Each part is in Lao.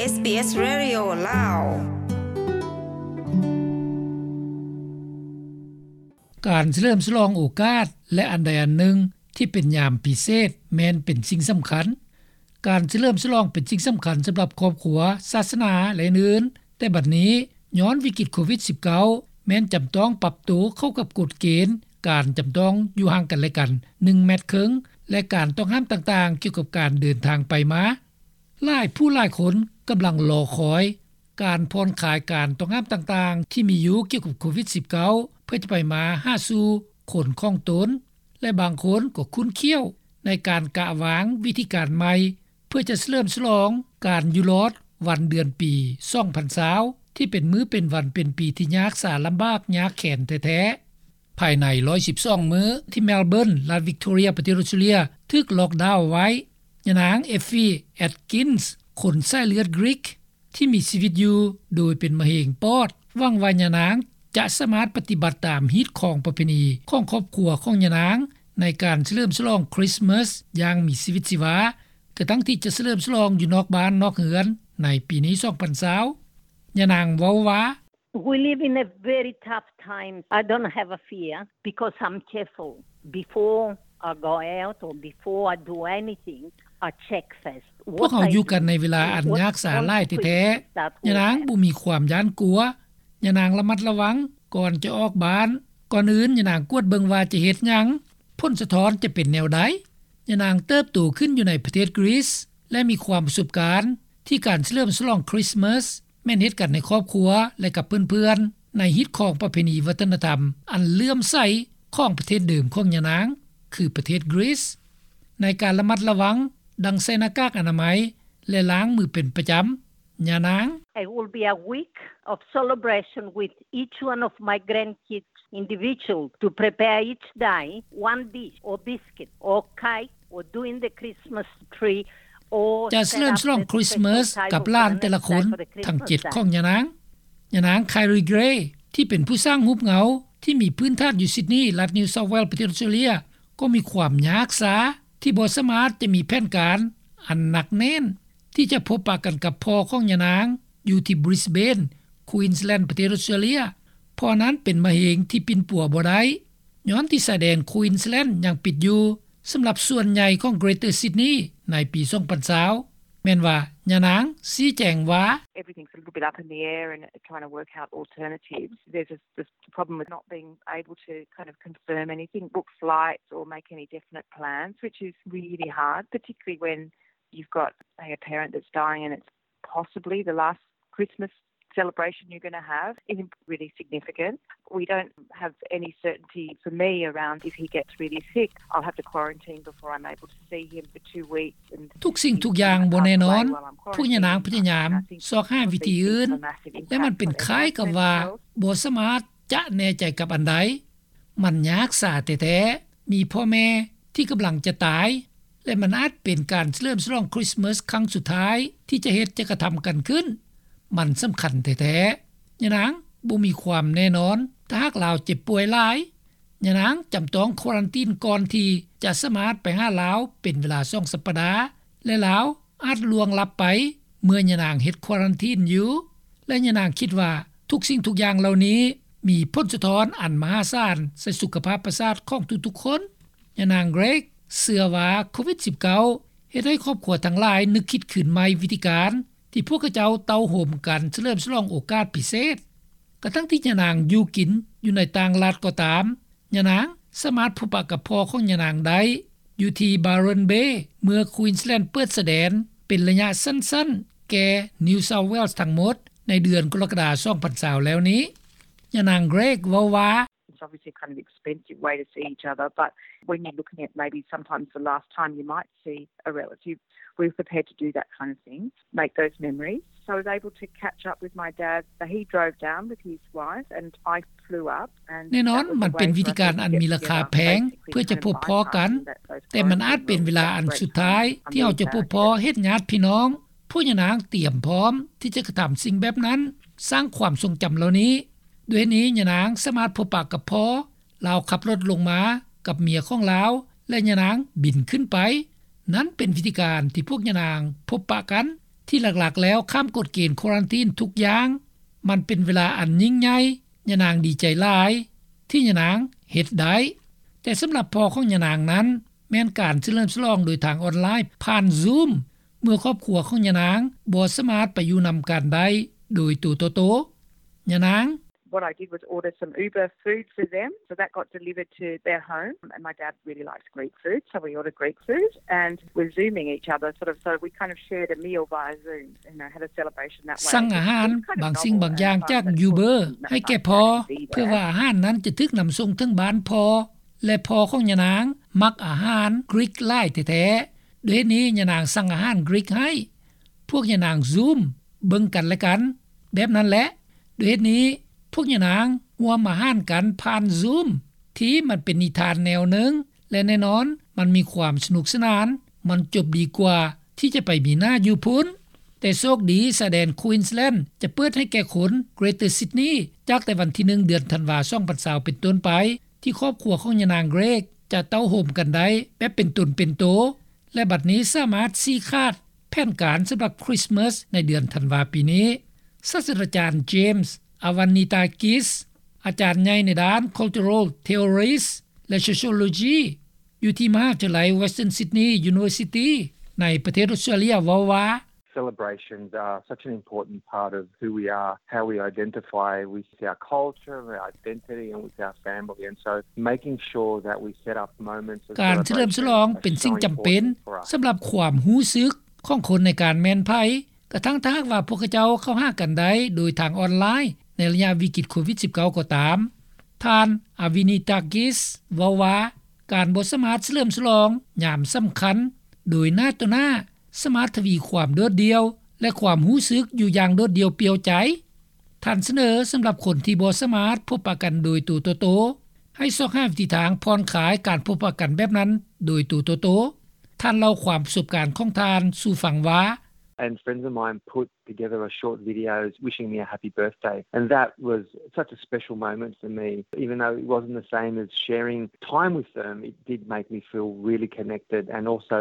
ເອສບີເອສ Radio ລາວ. ການສະເຫຼີມສະຫຼອງໂອກາດ ແລະ ອັນໃດອັນໜຶ່ງທີ່ເປັນຍາມພິເສດ ແມ່ນເປັນສິ່ງສຳຄັນ. ການສະເຫຼີມສະຫຼອງເປັນສິ່ງສຳຄັນສຳລັບຄອບຄົວ, ສາສະໜາ ແລະ ອື່ນໆ, ແຕ່ບັດນີ້ ຍ້ອນວິກິດໂຄວິດສິບເກົ້າ ແມ່ນຈຳຕ້ອງປັບໂຕເຂົ້າກັບກົດເກນ ການຈຳຕ້ອງຢູ່ຫ່າງກັນແລະກັນ ໜຶ່ງແມັດເຄິ່ງ ແລະ ການຕ້ອງຫ້າມຕ່າງໆ ກ່ຽວກັບການເດີນທາງໄປມາ. ຫຼາຍຜູ້ຫຼາຍຄົນກຳລັງລໍຄອຍການຜ່ອນຄາຍການຕ້ອງຫ້າມຕ່າງໆ ທີ່ມີຢູ່ກ່ຽວກັບໂຄວິດສິບເກົ້າ ເພື່ອຈະໄປມາຫາສູ່ຄົນຂອງຕົນ ແລະ ບາງຄົນກໍຂຸ້ນຂ້ຽວໃນການກະວາງວິທີການໃໝ່ ເພື່ອຈະສະເຫຼີມສະຫຼອງການຢູ່ລອດວັນເດືອນປີສອງພັນຊາວ ທີ່ເປັນມື້ເປັນວັນເປັນປີທີ່ຍາກສາລຳບາກຍາກແຄ້ນແທ້ໆ. ພາຍໃນຮ້ອຍສິບສອງມື້ທີ່ເມລເບີນ ລັດວິກໂທເຣຍ ປະເທດອອສເຕຣເລຍ ຖືກລັອກດາວໄວ້, ຍານາງ ເອຟຟີ ແອັດກິນສ໌ ຄົນສາຍເລືອດກຣີກ ທີ່ມີຊີວິດຢູ່ໂດຍເປັນມະເຮັງປອດ ຫວັງວ່າຍານາງຈະສາມາດປະຕິບັດຕາມຮີດຄອງປະເພນີຂອງຄອບຄົວຂອງຍານາງ ໃນການສະເຫຼີມສະຫຼອງຄຣິສມາສຢ່າງມີຊີວິດຊີວາ ກະທັງທີ່ຈະສະເຫຼີມສະຫຼອງຢູ່ນອກບ້ານນອກເຮືອນໃນປີນີ້ສອງພັນຊາວ. ຍານາງເວົ້າວ່າ We live in a very tough time. I don't have a fear because I'm careful. Before I go out or before I do anything, I check first. ພວກເຮົາຢູ່ກັນໃນເວລາອັນຍາກສາຫຼາຍແທ້ໆ. ຍານາງບໍ່ມີຄວາມຢ້ານກົວ. ຍານາງລະມັດລະວັງກ່ອນຈະອອກບ້ານ. ກ່ອນອື່ນ ຍານາງກວດເບິ່ງວ່າຈະເຮັດຫຍັງ, ຜົນສະທ້ອນຈະເປັນແນວໃດ. ຍານາງເຕີບໂຕຂຶ້ນຢູ່ໃນປະເທດກຣີສ ແລະ ມີຄວາມປະສົບການທີ່ການສະເຫຼີມສະຫຼອງຄຣິສມາສ ແມ່ນເຮັດກັນໃນຄອບຄົວ ແລະ ກັບເພື່ອນໆ ໃນຮີດຄອງປະເພນີວັດທະນະທຳອັນເຫຼື້ອມໃສຂອງປະເທດເດີມຂອງຍານາງ ຄືປະເທດກຣີສ. ໃນການລະມັດລະວັງ ດັ່ງໃສ່ໜ້າກາກອະນາໄມ ແລະ ລ້າງມືເປັນປະຈຳ, ຍານາງ It will be a week of celebration with each one of my grandkids individual to prepare each day one dish or biscuit or cake or doing the Christmas tree or ຈະສະເຫຼີມສະຫຼອງຄຣິສມາສກັບຫຼານແຕ່ລະຄົນທັງເຈັດຂອງຍານາງ. ຍານາງ ຄາຍຣີ ເກຣ ທີ່ເປັນຜູ້ສ້າງຮູບເງົາທີ່ມີພື້ນຖານຢູ່ຊິດນີ ລັດນິວເຊົາເວລສ໌ ປະເທດອອສເຕຣເລຍ ກໍມີຄວາມຍາກສາທີ່ບໍ່ສາມາດຈະມີແຜນການອັນໜັກແໜ້ນ ທີ່ຈະພົບປະກັນກັບພໍ່ຂອງຍານາງຢູ່ທີ່ບຣິສເບນ ຄວີນສ໌ແລນ ປະເທດອອສເຕຣເລຍ ເພາະນັ້ນເປັນມະເຮັງທີ່ປິ່ນປົວບໍ່ໄດ້ ຍ້ອນທີ່ຊາຍແດນຄວີນສ໌ແລນຍັງປິດຢູ່ສຳລັບສ່ວນໃຫຍ່ຂອງເກຣເຕີຊິດນີໃນປີສອງພັນຊາວ ແມ່ນວ່າຍານາງຊີ້ແຈງວ່າ Everything's a little bit up in the air and trying to work out alternatives. There's a, the problem with not being able to kind of confirm anything, book flights or make any definite plans, which is really hard, particularly when you've got, say, a parent that's dying and it's possibly the last Christmas celebration you're going to have is really significant. We don't have any certainty for me around if he gets really sick. I'll have to quarantine before I'm able to see him for two weeks. ທຸກສິ່ງທຸກຢ່າງບໍ່ແນ່ນອນ. ພວກຍານາງພະຍາຍາມຊອກຫາວິທີອື່ນ ແລະ ມັນເປັນຄ້າຍກັບວ່າບໍ່ສາມາດຈະແນ່ໃຈກັບອັນໃດ. ມັນຍາກສາແທ້ໆ. ມີພໍ່ແມ່ທີ່ກຳລັງຈະຕາຍ ແລະ ມັນອາດເປັນການສະເຫຼີມສະຫຼອງຄຣິສມາສຄັ້ງສຸດທ້າຍທີ່ຈະເຮັດ ຈະກະທຳກັນຂຶ້ນ. ມັນສຳຄັນແທ້ໆ. ຍານາງບໍ່ມີຄວາມແນ່ນອນ ຖ້າຫາກລາວເຈັບປ່ວຍຫຼາຍ. ຍານາງຈຳຕ້ອງຄວາຣັນຕີນກ່ອນທີ່ຈະສາມາດໄປຫາລາວເປັນເວລາສອງສັບປະດາ ແລະ ລາວອາດລ່ວງລັບໄປເມື່ອຍານາງເຮັດຄວາຣັນຕີນຢູ່ ແລະ ຍານາງຄິດວ່າທຸກສິ່ງທຸກຢ່າງເຫຼົ່ານີ້ມີຜົນສະທ້ອນອັນມະຫາສານໃສ່ສຸຂະພາບປະສາດຂອງທຸກໆຄົນ. ຍານາງເກຣກເຊື່ອວ່າໂຄວິດສິບເກົ້າເຮັດໃຫ້ຄອບຄົວທັງຫຼາຍນຶກຄິດຄືນໃໝ່ວິທີການທີ່ພວກເຂົາເຈົ້າເຕົ້າໂຮມກັນສະເຫຼີມສະຫຼອງໂອກາດພິເສດ. ກະທັງທີ່ຍານາງຢູ່ກິນຢູ່ໃນຕ່າງລັດກໍຕາມ, ຍານາງສາມາດພົບປະກັບພໍ່ຂອງຍານາງໄດ້ຢູ່ທີ່ Byron Bay ເມື່ອ Queensland ເປີດຊາຍແດນເປັນໄລຍະສັ້ນໆແກ່ New South Wales ທັງໝົດໃນເດືອນກໍລະກະດາ ສອງພັນຊາວແລ້ວນີ້. ຍານາງເກຣກເວົ້າວ່າ It's obviously kind of expensive way to see each other, but when you're looking at maybe sometimes the last time you might see a relative, we're prepared to do that kind of thing, make those memories. So I was able to catch up with my dad. He drove down with his wife and I flew up. ແນ່ນອນ ມັນເປັນວິທີການອັນມີລາຄາແພງເພື່ອຈະພົບພໍ້ກັນ, ແຕ່ມັນອາດເປັນເວລາອັນສຸດທ້າຍທີ່ເຮົາຈະພົບພໍ້ເຫັນຍາດພີ່ນ້ອງ. ພວກຍານາງຕຽມພ້ອມທີ່ຈະກະທຳສິ່ງແບບນັ້ນ, ສ້າງຄວາມຊົງຈຳເຫຼົ່ານີ້. ດ້ວຍເຫດນີ້ ຍານາງສາມາດພົບປະກັບພໍ່, ລາວຂັບລົດລົງມາກັບເມຍຂອງລາວ ແລະ ຍານາງບິນຂຶ້ນໄປ. ນັ້ນເປັນວິທີການທີ່ພວກຍານາງພົບປະກັນ ທີ່ຫຼັກໆແລ້ວຂ້າມກົດເກນຄວາຣັນທີນທຸກຢ່າງ. ມັນເປັນເວລາອັນຍິ່ງໃຫຍ່, ຍານາງດີໃຈຫຼາຍທີ່ຍານາງເຮັດໄດ້. ແຕ່ສຳລັບພໍ່ຂອງຍານາງນັ້ນ ແມ່ນການສະເຫຼີມສະຫຼອງໂດຍທາງອອນລາຍຜ່ານ Zoom ເມື່ອຄອບຄົວຂອງຍານາງບໍ່ສາມາດໄປຢູ່ນຳກັນໄດ້ໂດຍໂຕຕໍ່ໂຕ. ຍານາງ What I did was order some Uber food for them, so that got delivered to their home, and my dad really likes Greek food, so we ordered Greek food, and we're Zooming each other, sort of, so we kind of shared a meal via Zoom, you know, had a celebration that way. ສັ່ງອາຫານບາງສິ່ງບາງຢ່າງຈາກ Uber ໃຫ້ແກ່ພໍ່ ເພື່ອວ່າອາຫານນັ້ນຈະຖືກນຳສົ່ງເຖິງບ້ານພໍ່ ແລະ ພໍ່ຂອງຍານາງມັກອາຫານ Greek ຫຼາຍແທ້ໆ. ດ້ວຍເຫດນີ້ຍານາງສັ່ງອາຫານ Greek ໃຫ້ ພວກຍານາງ Zoom ເບິ່ງກັນແລະກັນແບບນັ້ນແຫຼະ. ດ້ວຍເຫດນີ້ພວກຍານາງຮ່ວມອາຫານກັນຜ່ານ Zoom ທີ່ມັນເປັນນິທານແນວໜຶ່ງ ແລະ ແນ່ນອນມັນມີຄວາມສະໜຸກສະໜານ, ມັນຈົບດີກວ່າທີ່ຈະໄປມີໜ້າຢູ່ພຸ້ນ. ແຕ່ໂຊກດີ ຊາຍແດນ Queensland ຈະເປີດໃຫ້ແກ່ຄົນ Greater Sydney ຈາກແຕ່ວັນທີໜຶ່ງ ເດືອນທັນວາ ສອງພັນຊາວ ເປັນຕົ້ນໄປ ທີ່ຄອບຄົວຂອງຍານາງ Greek ຈະເຕົ້າໂຮມກັນໄດ້ແບບເປັນຕົນເປັນໂຕ ແລະ ບັດນີ້ສາມາດຊີ້ຂາດແຜນການສຳລັບ Christmas ໃນເດືອນທັນວາປີນີ້. ສາດສະດາຈານ James Avanitakis ອາຈານໃຫຍ່ໃນດ້ານ Cultural Theories ແລະ Sociology ຢູ່ທີ່ມະຫາວິທະຍາໄລ Western Sydney University ໃນປະເທດອອສເຕຣເລັຍ ເວົ້າວ່າ Celebrations are such an important part of who we are, how we identify with our culture, our identity, and with our family. And so making sure that we set up moments of ການສະເຫຼີມສະຫຼອງເປັນສິ່ງຈຳເປັນສຳລັບຄວາມຮູ້ສຶກຂອງຄົນໃນການແມ່ນໃຜ, ກະທັ່ງຖ້າຫາກວ່າພວກເຂົາເຈົ້າເຂົ້າຫາກັນໄດ້ໂດຍທາງອອນລາຍໃນໄລຍະວິກິດໂຄວິດສິບເກົ້າກໍຕາມ. ທ່ານ ອາວິນິຕາກິສ ເວົ້າວ່າ ການບໍ່ສາມາດສະເຫຼີມສະຫຼອງຍາມສຳຄັນໂດຍໜ້າຕໍ່ໜ້າ ສາມາດທະວີຄວາມໂດດດ່ຽວ ແລະ ຄວາມຮູ້ສຶກຢູ່ຢ່າງໂດດດ່ຽວປ່ຽວໃຈ. ທ່ານສະເໜີສຳລັບຄົນທີ່ບໍ່ສາມາດພົບປະກັນໂດຍໂຕຕໍ່ໂຕ ໃຫ້ຊອກຫາວິທີທາງຜ່ອນຄາຍການພົບປະກັນແບບນັ້ນໂດຍໂຕຕໍ່ໂຕ. ທ່ານເລົ່າຄວາມປະສົບການຂອງທ່ານສູ່ຟັງວ່າ And friends of mine put together a short video wishing me a happy birthday. And that was such a special moment for me. Even though it wasn't the same as sharing time with them, it did make me feel really connected and also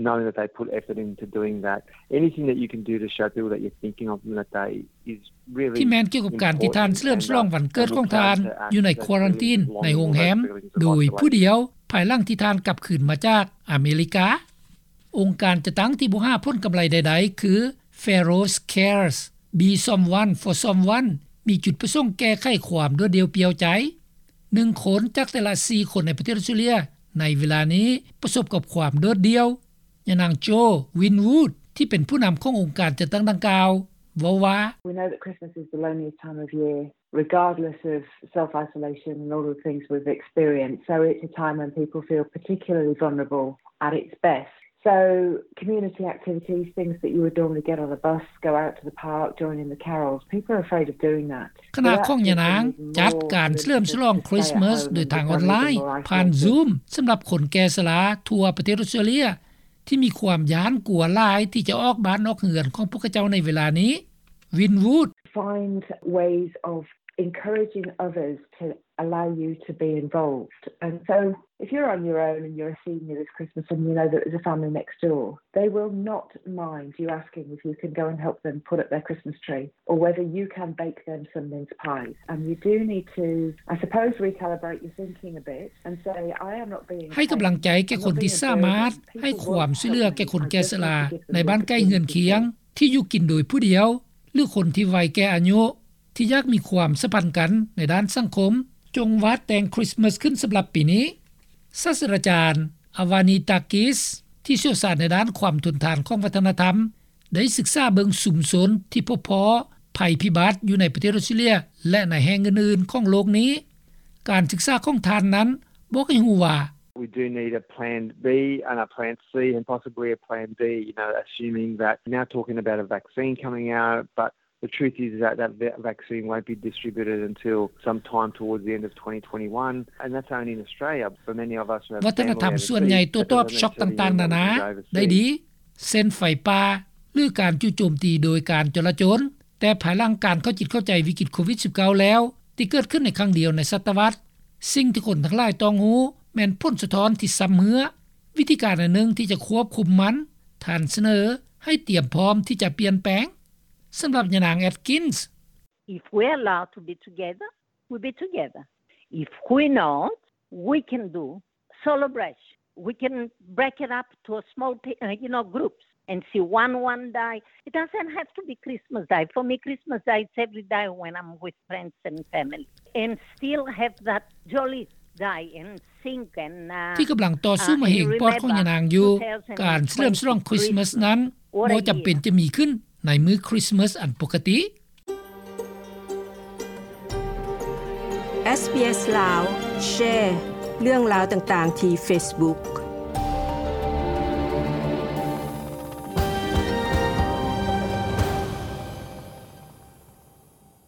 knowing that they put effort into doing that. Anything that you can do to show people that you're thinking of them that day is really ທີ່ແມ່ນກ່ຽວກັບການທີ່ທ່ານສະເຫຼີມສະຫຼອງວັນເກີດຂອງທ່ານຢູ່ໃນຄວາຣັນທີນໃນໂຮງແຮມໂດຍຜູ້ດຽວ ພາຍຫຼັງທີ່ທ່ານກັບຄືນມາຈາກອາເມລິກາ. ອົງການຈັດຕັ້ງທີ່ບໍ່ຫາຜົນກຳໄລໃດໆ ຄື Faroes Cares, Be Someone for Someone ມີຈຸດປະສົງແກ້ໄຂຄວາມໂດດດ່ຽວປ່ຽວໃຈ. ໜຶ່ງຄົນຈາກແຕ່ລະສີ່ຄົນໃນປະເທດອອສເຕຣເລັຍໃນເວລານີ້ປະສົບກັບຄວາມໂດດດ່ຽວ. ຍານາງ ໂຈ ວິນວູດ ທີ່ເປັນຜູ້ນຳຂອງອົງການຈັດຕັ້ງດັ່ງກ່າວ ເວົ້າວ່າ We know that Christmas is the loneliest time of year, regardless of self-isolation and all the things we've experienced. So it's a time when people feel particularly vulnerable at its best. So community activities, things that you would normally get on a bus, go out to the park, join in the carols, people are afraid of doing that. ຄະນະຂອງຍານາງຈັດການສະເຫຼີມສະຫຼອງຄຣິສມາສໂດຍທາງອອນລາຍ ຜ່ານ Zoom ສຳລັບຄົນແກ່ຊະລາທົ່ວປະເທດອອສເຕຣເລັຍ ທີ່ມີຄວາມຢ້ານກົວຫຼາຍທີ່ຈະອອກບ້ານອອກເຮືອນຂອງພວກເຂົາເຈົ້າໃນເວລານີ້. ວິນວູດ Find ways of encouraging others to allow you to be involved. And so if you're on your own and you're a senior this Christmas and you know that there's a family next door, they will not mind you asking if you can go and help them put up their Christmas tree or whether you can bake them some mince pies. And you do need to, I suppose, recalibrate your thinking a bit and say, I am not being ໃຫ້ກຳລັງໃຈແກ່ຄົນທີ່ສາມາດໃຫ້ຄວາມຊ່ວຍເຫຼືອແກ່ຄົນແກ່ຊະລາໃນບ້ານໃກ້ເຮືອນຄຽງທີ່ຢູ່ກິນໂດຍຜູ້ດຽວ ຫຼື ຄົນທີ່ໄວແກ່ອາຍຸ ທີ່ຢາກມີຄວາມສຳພັນກັນໃນດ້ານສັງຄົມ. ຈົ່ງວາດແຕ່ງຄຣິສມາສຂຶ້ນສຳລັບປີນີ້. ສາດສະດາຈານ ອາວານີຕາກິສ ທີ່ຊ່ຽວຊານໃນດ້ານຄວາມທົນທານຂອງວັດທະນະທຳ ໄດ້ສຶກສາເບິ່ງຊຸມຊົນທີ່ພົບພໍ້ໄພພິບັດຢູ່ໃນປະເທດອອສເຕຣເລັຍ ແລະ ໃນແຫ່ງອື່ນໆຂອງໂລກນີ້. ການສຶກສາຂອງທ່ານນັ້ນບອກໃຫ້ຮູ້ວ່າ We do need a plan B and a plan C and possibly a plan D, you know, assuming that now talking about a vaccine coming out, but the truth is that that va-, vaccine won't be distributed until sometime towards the end of twenty twenty-one, and that's only in Australia. For many of us who have ວັດທະນະທຳສ່ວນໃຫຍ່ໂຕ້ຕອບຊັອກຕ່າງໆນານາໄດ້ດີ ເຊັ່ນໄຟປ່າ ຫຼື ການຈູ່ໂຈມຕີໂດຍການຈໍລະຈົນ. ແຕ່ພາຍຫຼັງການເຂົ້າຈິດເຂົ້າໃຈວິກິດໂຄວິດສິບເກົ້າແລ້ວ ທີ່ເກີດຂຶ້ນໃນຄັ້ງດຽວໃນສະຕະວັດ, ສິ່ງທີ່ຄົນທັງຫຼາຍຕ້ອງຮູ້ແມ່ນຜົນສະທ້ອນທີ່ຊຳເຮື້ອ. ວິທີການອັນໜຶ່ງທີ່ຈະຄວບຄຸມມັນ, ທ່ານສະເໜີ ໃຫ້ຕຽມພ້ອມທີ່ຈະປ່ຽນແປງ. ສຳລັບຍານາງ Atkins, If we allow to be together, we'll be together. If we not, we can do solo brunch. We can break it up to a small, uh, you know, groups and see one, one day. It doesn't have to be Christmas Day. For me, Christmas Day is every day when I'm with friends and family. And still have that jolly day and sing and, uh, ທີ່ກຳລັງຕໍ່ສູ້ມາເຮັງປອດຂອງຍານາງຢູ່. ການສະເຫຼີມສະຫຼອງຄຣິສມາສນັ້ນ ບໍ່ຈຳເປັນຈະມີຂຶ້ນໃນມື້ຄຣິສມາສອັນປົກກະຕິ. ເອສ ບີ ເອສ ລາວ ແຊເລື່ອງລາວຕ່າງໆທີ່ເຟສບຸກ.